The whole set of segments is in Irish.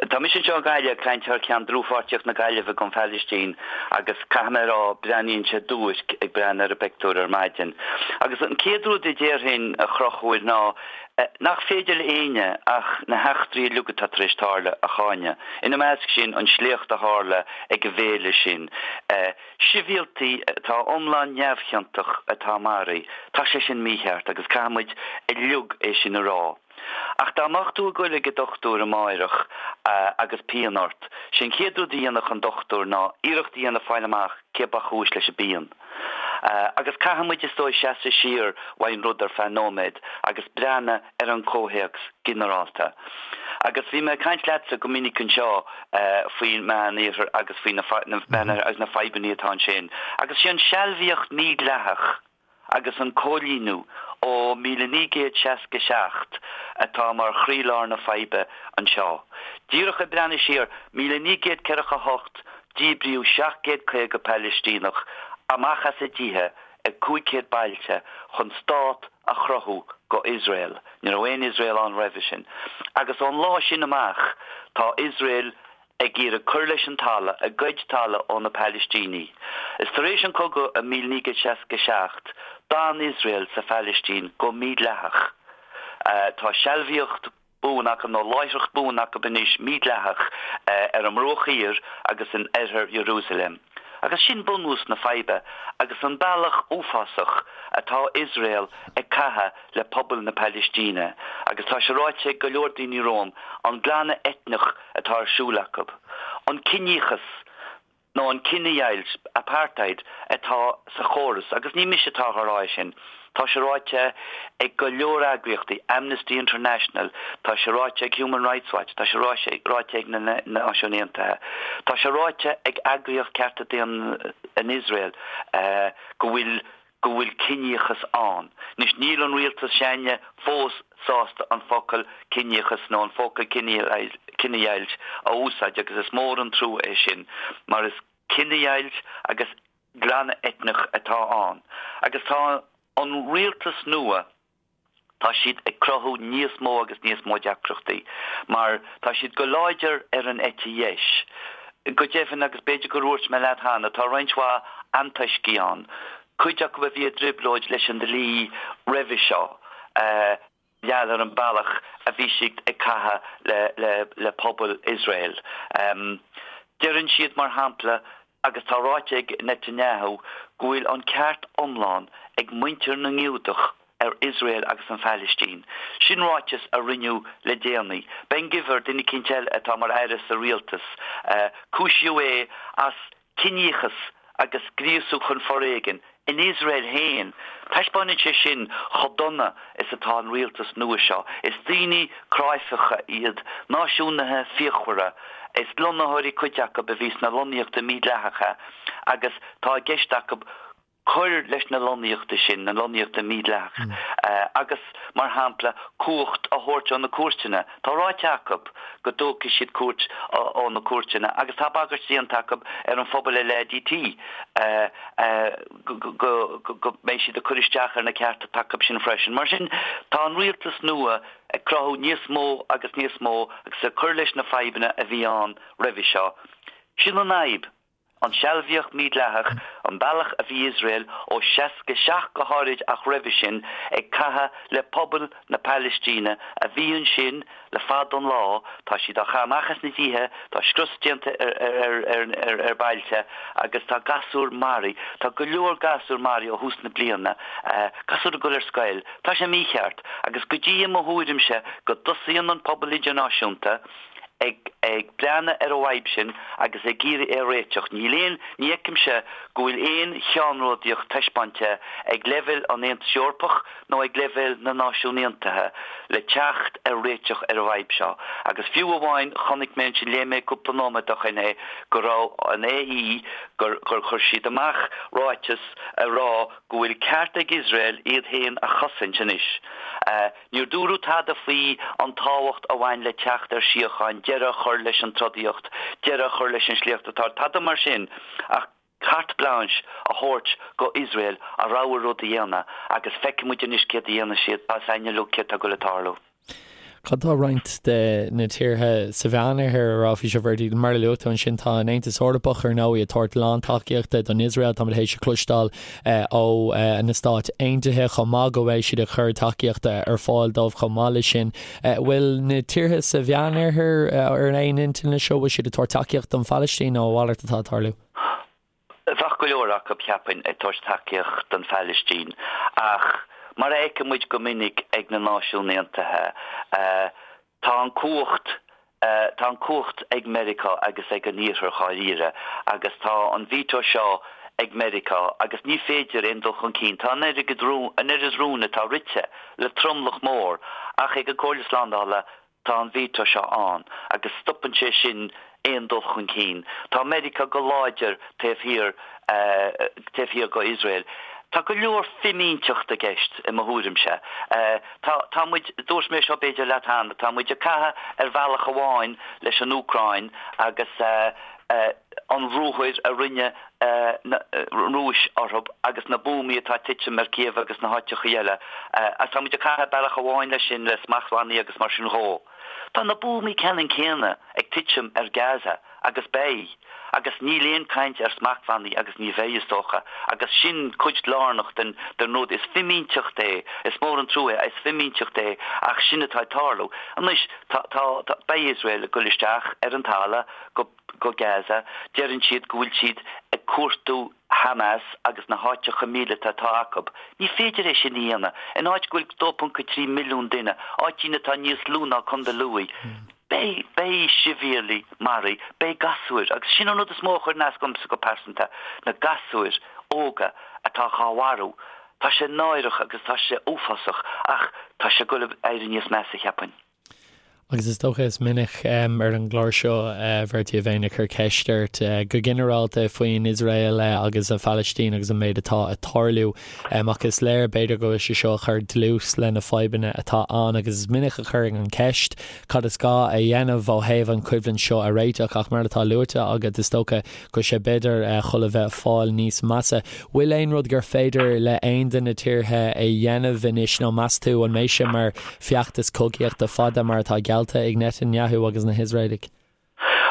Tá mise anseo i nGaillimh ag caint thar ceann dlúthpháirtíocht na Gaillimhe don Phalaistín agus caithfidh mé a rá, breathnaíonn sé duairc ag breathnú ar an bpictiúr ar maidin. Agus an chéad rud a déarfainn, a Chonchúir, ná nach féidir le éinne ach na heachtraí uilig atá tar éis tarlú a cháineadh. Ina measc sin, an sléacht a tharla ag an bhféile sin. Sibhialtaigh atá iomlán neamhchiontach atá maraithe. Tá sé sin mícheart agus caithfidh muid uilig é sin a rá. Ach dá mbeadh tú ag goil ag an dochtúir amáireach agus pian ort, sé an chéad rud a dhéanfadh an dochtúir ná iarracht a dhéanamh fáil amach cé ba chúis leis an bpian. Agus caithfidh muid is dóigh seasamh siar uaidh an rud ar feadh nóiméad agus breathnú ar an comhthéacs ginearálta. Agus bhí mé ag caint leatsa go minic anseo faoin Meán Iarthar agus faoi na agus na fadhbanna atá ansin. Agus sé an sealbhaíocht mídhleathach agus an cóilíniú ó 1967 atá mar chroílár na faidhbe anseo. Díreach ag breathnú siar, 1948 díbríodh 750 Palaistíneach amach as a dtithe i 500 bailte chun stát a chruthú go Iosrael. Ní raibh aon Iosrael ann roimhe sin. Agus ón lá sin amach tá Iosrael ag iarraidh cur leis an talamh, ag goid talamh ó na Palaistínigh. Is tar éis an cogadh i 1967, d'fhan Iosrael sa Phalaistín go mídhleathach. Tá sealbhaíocht buan acu, nó láithreacht buan acu anois, mídhleathach, ar an mBruach Thiar agus in oirthear Iarúsailéim. Agus sin bunús na faidhbe agus an bealach uafásach atá Iosrael ag caitheamh le pobal na Palaistíne. Agus tá sé ráite ag go leor daoine romham, an glanadh eitneach atá ar siúl acu, an ciníochas nó an cinedheighilt, apartheid, atá sa chóras, agus ní mise atá á rá é sin, tá sé ráite ag go leor eagraíochtaí, Amnesty International, tá sé ráite ag Human Rights Watch, tá sé ráite ag na Náisiúin Aontaithe, tá sé ráite ag eagraíocht cearta daonna in Iosrael go bhfuil go bhfuil ciníochas ann. Anois, níl an rialtas s'againne fós sásta an focal ciníochas nó an focal cinedheighilt a úsáid agus is mór an trua é sin mar is cinedheighilt agus glanadh eitneach atá ann. Agus tá an rialtas nua, tá siad ag cruthú níos mó agus níos mó deacrachtaí mar tá siad go láidir ar an eite dheis. Go deimhin, agus b'fhéidir gur dhúirt mé leat cheana, tá roinnt mhaith antoiscigh ann, cuid acu a bhí i dtrioblóid leis an dlí roimhe seo, gheall ar an bealach a bhí siad ag caitheamh le pobal Iosrael. Deireann siad, mar shampla, agus tá ráite ag Netanyahu, go bhfuil an ceart iomlán ag muintir na nGiúdach ar Iosrael agus an Phalaistín. Sin ráiteas a rinneadh le déanaí. Ben Gvir, duine eicínt eile atá mar aire sa rialtas, cúisíodh é as ciníochas agus gríosú chun foréigin in Iosrael féin. Taispeánann sé sin chomh dona is atá an rialtas nua seo. Is daoine cráifeacha iad, náisiúnaithe fíochmhara. Is lonnaitheoirí cuid acu a bhí sna lonnaíochtaí mídhleathacha agus tá i gceist acu cur leis na lonnaíochtaí sin, na lonnaíochtaí mídhleathacha, agus, mar shampla, cumhacht a thabhairt ó na cúirteanna. Tá ráite acu go dtógfaidh siad cumhacht ó na cúirteanna agus tá bagairt déanta acu ar an phobal LADT go mbeidh siad ag cur isteach ar na cearta atá acu sin freisin. Mar sin, tá an rialtas nua ag cruthú níos mó agus níos mó agus ag cur leis na fadhbanna a bhí ann roimhe seo. Sin an fhadhb. An sealbhaíocht mídhleathach, an bealach a bhí Iosrael, ó 67 go háirid ach roimhe sin, ag caitheamh le pobal na Palaistíne a bhí ansin le fada an lá, tá siad á chaitheamh amach as na dtithe, tá scrios déanta ar bailte agus tá gasúir maraithe, tá go leor gasúr maraithe ó thús na bliana, gasúir ag dul ar scoil. Tá sé mícheart agus go dtí i mo thuairimse go dtosaíonn an pobal idirnáisiúnta, ag ag breathnú ar an bhfadhb sin agus ag iarraidh é a réiteach. Níl aon, ní fheicimse go bhfuil aon cheannródaíocht taispeáinte ag leibhéal an Aontais Eorpach nó ag leibhéal na Náisiún Aontaithe le teacht ar réiteach ar an bhfadhb seo. Agus fiú amháin, chonaic mé ansin, léigh mé cúpla nóiméad ó shin é, go raibh an AE, gur gur chuir siad amach ráiteas ag rá go bhfuil ceart ag Iosrael iad féin a chosaint anois. Níor dúradh tada faoi an tábhacht a bhain le teacht ar síocháin, deireadh a chur leis an trodaíocht, deireadh a chur leis an sléacht atá, tada mar sin ach carte blanche a thabhairt go Iosrael a rogha rud a dhéanamh agus feicfidh muid anois céard a dhéanfaidh siad, tá a fhios againn uilig céard tá ag dul a tarlú. Cad tá roinnt de na tíortha sa Mheánoirthear a rá faoi seo, Bhertie? Mar a luaigh tú ansin, tá an Aontas Eorpach, ar ndóigh, ag tabhairt lántacaíochta don Iosrael. Táimid théis a chloisteáil ó na Stáit Aontaithe chomh maith go bhfuil siad ag cur tacaíochta ar fáil dóibh chomh maith leis sin. Bhfuil na tíortha sa Mheánoirthear ar aon intinn leis seo? Bhfuil siad ag tabhairt tacaíocht don Phalaistín nó a mhalairt atá ag tarlú? Bheadh go leor acu, cheapfainn, ag tabhairt tacaíocht don Phalaistín ach mar a fheiceann muid go minic ag na Náisiúin Aontaithe, tá an cumhacht, tá an cumhacht ag Meiriceá agus ag an Iarthar dháiríre agus tá an veto seo ag Meiriceá agus ní féidir aon dul chun cinn, tá an oiread rún, an oiread rún atá rite le tromlach mór ach ag an Comhairle Slándála Tá an veto seo ann agus stopann sé sin aon dul chun cinn. Tá Meiriceá go láidir taobh thiar taobh thiar go Iosrael. Tá go leor fimínteacht i gceist i mo thuairimse. Tá tá muid, dúirt mé seo b'fhéidir leat cheana, tá muid ag caitheamh ar bhealach amháin leis an Úcráin agus an ruathar a rinne na Rúis orthu agus na buamaí atá ag titim ar Kiev agus na háiteachaí eile. Agus tá muid ag caitheamh bealach amháin leis sin, le smachtbhannaí agus mar sin dhó. Tá na buamaí ceannann céanna ag titim ar Gaza agus beidh. Agus níl aon caint ar smachtbhannaí agus ní bheidh, is dócha. Agus sin cuid lárnach den den rud. Is fimínteacht é. Is mór an trua é. Is fimínteacht é ach sin atá ag tarlú. Anois, tá, tá, tá, beidh Iosrael ag goil isteach ar an talamh go go Gaza, deireann siad go bhfuil siad ag cuartú Hamas agus na háiteacha míleata atá acu. Ní féidir é sin a dhéanamh in áit go bhfuil 2.3 milliún duine, áitín atá níos lú ná Contae Lú. Beidh, beidh sibhialaigh maraithe, beidh gasúir, agus sin an rud is mó a chuireann as domsa go pearsanta, na gasúir óga atá dhá mharú. Tá sé náireach agus tá sé uafásach ach tá sé ag goil ag éirí níos measa, cheapfainn. Agus is dócha is minic ar an gclár seo, a Bhertie, a bheinn ag cur ceist ort go ginearálta faoin Iosrael agus an Phalaistín agus an méid atá ag tarlú. Ach is léir, b'fhéidir, go bhfuil sé seo ag cur dlús le na fadhbanna atá ann agus is minic a chuirfinn an cheist cad is gá a dhéanamh ó thaobh an choimhlint seo a réiteach ach mar atá luaite agat, is dócha go bhfuil sé b'fhéidir chun a bheith ag fáil níos measa. Bhfuil aon rud gur féidir le aon de na tíortha a dhéanamh anois nó meas tú an mbeidh sé mar feachtas cogaíochta fada mar atá geallta ag Netanyahu agus na hIosraelaigh?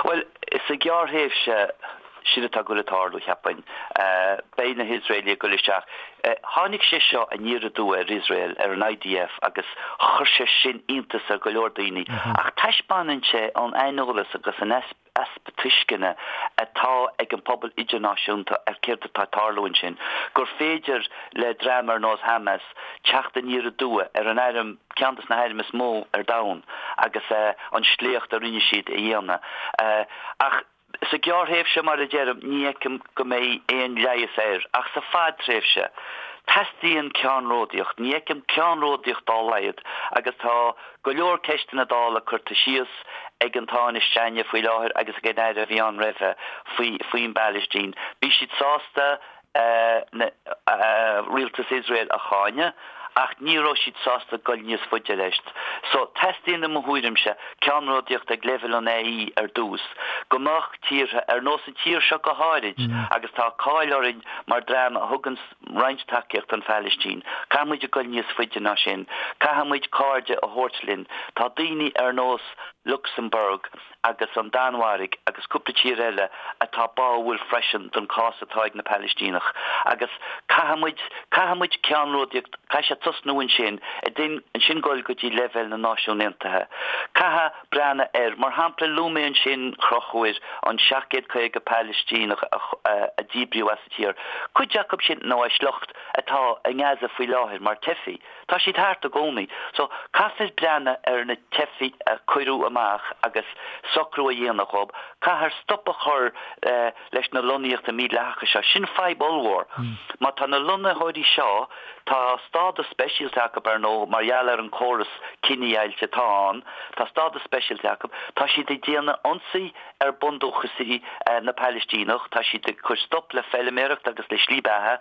Bhuel, sa ghearrthréimhse, sin atá ag goil ag tarlú, cheapfainn. Beidh na hIosraelaigh ag goil isteach. Tháinig sé seo aniar aduaidh ar Iosrael, ar an IDF, agus chuir sé sin iontas ar go leor daoine. Ach taispeánann sé an aineolas agus an easpa tuisceana atá ag an pobal idirnáisiúnta ar céard atá ag tarlú ansin, gur féidir le dream ar nós Hamas teacht aniar aduaidh ar an airm, ceann de na hairm is mó ar domhan agus an sléacht a rinne siad a dhéanamh. Ach sa ghearrthréimhse, mar a deirim, ní fheicim go mbeidh aon leigheas air. Ach sa fadtréimhse, teastaíonn ceannródaíocht. Ní fheicim ceannródaíocht dá laghad agus tá go leor ceisteanna Dála curtha síos ag an Tánaiste faoi láthair agus ag an Aire a bhí ann roimhe faoi faoin bPailistín. Bhí siad sásta rialtas Iosrael a cháineadh ach ní raibh siad sásta dul níos faide leis. So, teastaíonn i mo thuairimse ceannródaíocht ag leibhéal an AE ar dtús, go mbeadh tíortha, ar nós an tír seo go háirid, agus tá cáil orainn mar dream a thugann roinnt tacaíocht don Phailistín. Caithfidh muid a goil níos faide ná sin. Caithfidh muid cairde a thabhairt linn. Tá daoine ar nós Lucsamburg agus an Danmhairg agus cúpla tír eile atá báúil freisin don cás atá ag na Palaistíneach. Agus caithfidh muid, caithfidh muid ceannródaíocht, caithfidh sé tosnú ansin, ansin goil go dtí leibhéal na Náisiún Aontaithe. Caithfidh breathnú air. Mar shampla, luaigh mé ansin, a Chonchúir, an 750 Palaistíneach a díbríodh as. tír. Cuid acu sin, nó a sliocht, atá i nGaza faoi láthair mar teifigh. Tá siad thart i gcónaí. So, caithfear breathnú ar na teifigh a cuireadh amach agus socrú a dhéanamh dhób. Caithfear stop a chur leis na lonnaíochtaí mídhleathacha seo. Sin fadhb ollmhór. Má tá na lonnaitheoirí seo, tá stádas speisialta acu, ar ndóigh, mar gheall ar an córas cinedheighilte atá ann, tá stádas speisialta acu, tá siad ag déanamh ionsaí ar bundúchasaigh na Palaistíneach, tá siad ag cur stop le feilméaracht agus le slí beatha,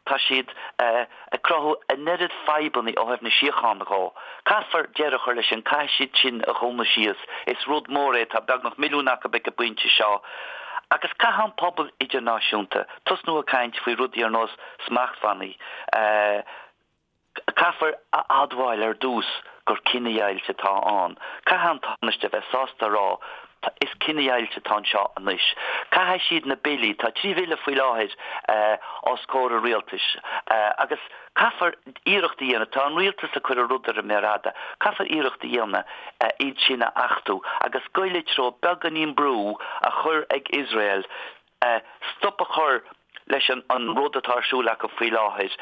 tá siad ag cruthú an oiread fadhbanna ó thaobh na síochána dhó. Caithfear deireadh a chur leis sin, caithfidh siad sin a dhúnadh síos. Is rud mór é, tá beagnach milliún acu ag an bpointe seo. Agus caithfidh an pobal idirnáisiúnta tosnú ag caint faoi rudaí ar nós smachtbhannaí. Caithfear a admháil ar dtús. gur cinedheighilt atá ann. Caithfidh an Tánaiste a bheith sásta a rá is cinedheighilt atá anseo anois. Caithfidh siad na billí, tá 3 bhille faoi láthair os comhair an rialtais agus caithfear iarracht a dhéanamh, tá an rialtas ag cur an rud ar an méar fhada, caithfear iarracht a dhéanamh iad sin a achtú agus goil i dtreo beagáinín brú a chur ag Iosrael stop a chur leis an rud atá ar siúl acu faoi láthair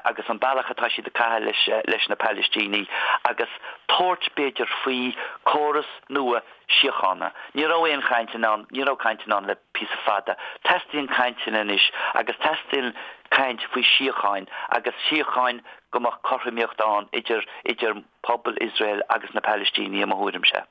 agus an bealach atá siad ag caitheamh leis na Palaistínigh agus tabhairt, b'fhéidir, faoi córas nua síochána. Ní raibh aon chainteanna ann, ní raibh cainteanna ann le píosa fada. Teastaíonn cainteanna anois agus teastaíonn caint faoi síocháin agus síocháin go mbeadh cothromaíocht ann idir idir pobal Iosrael agus na Palaistínigh i mo thuairimse.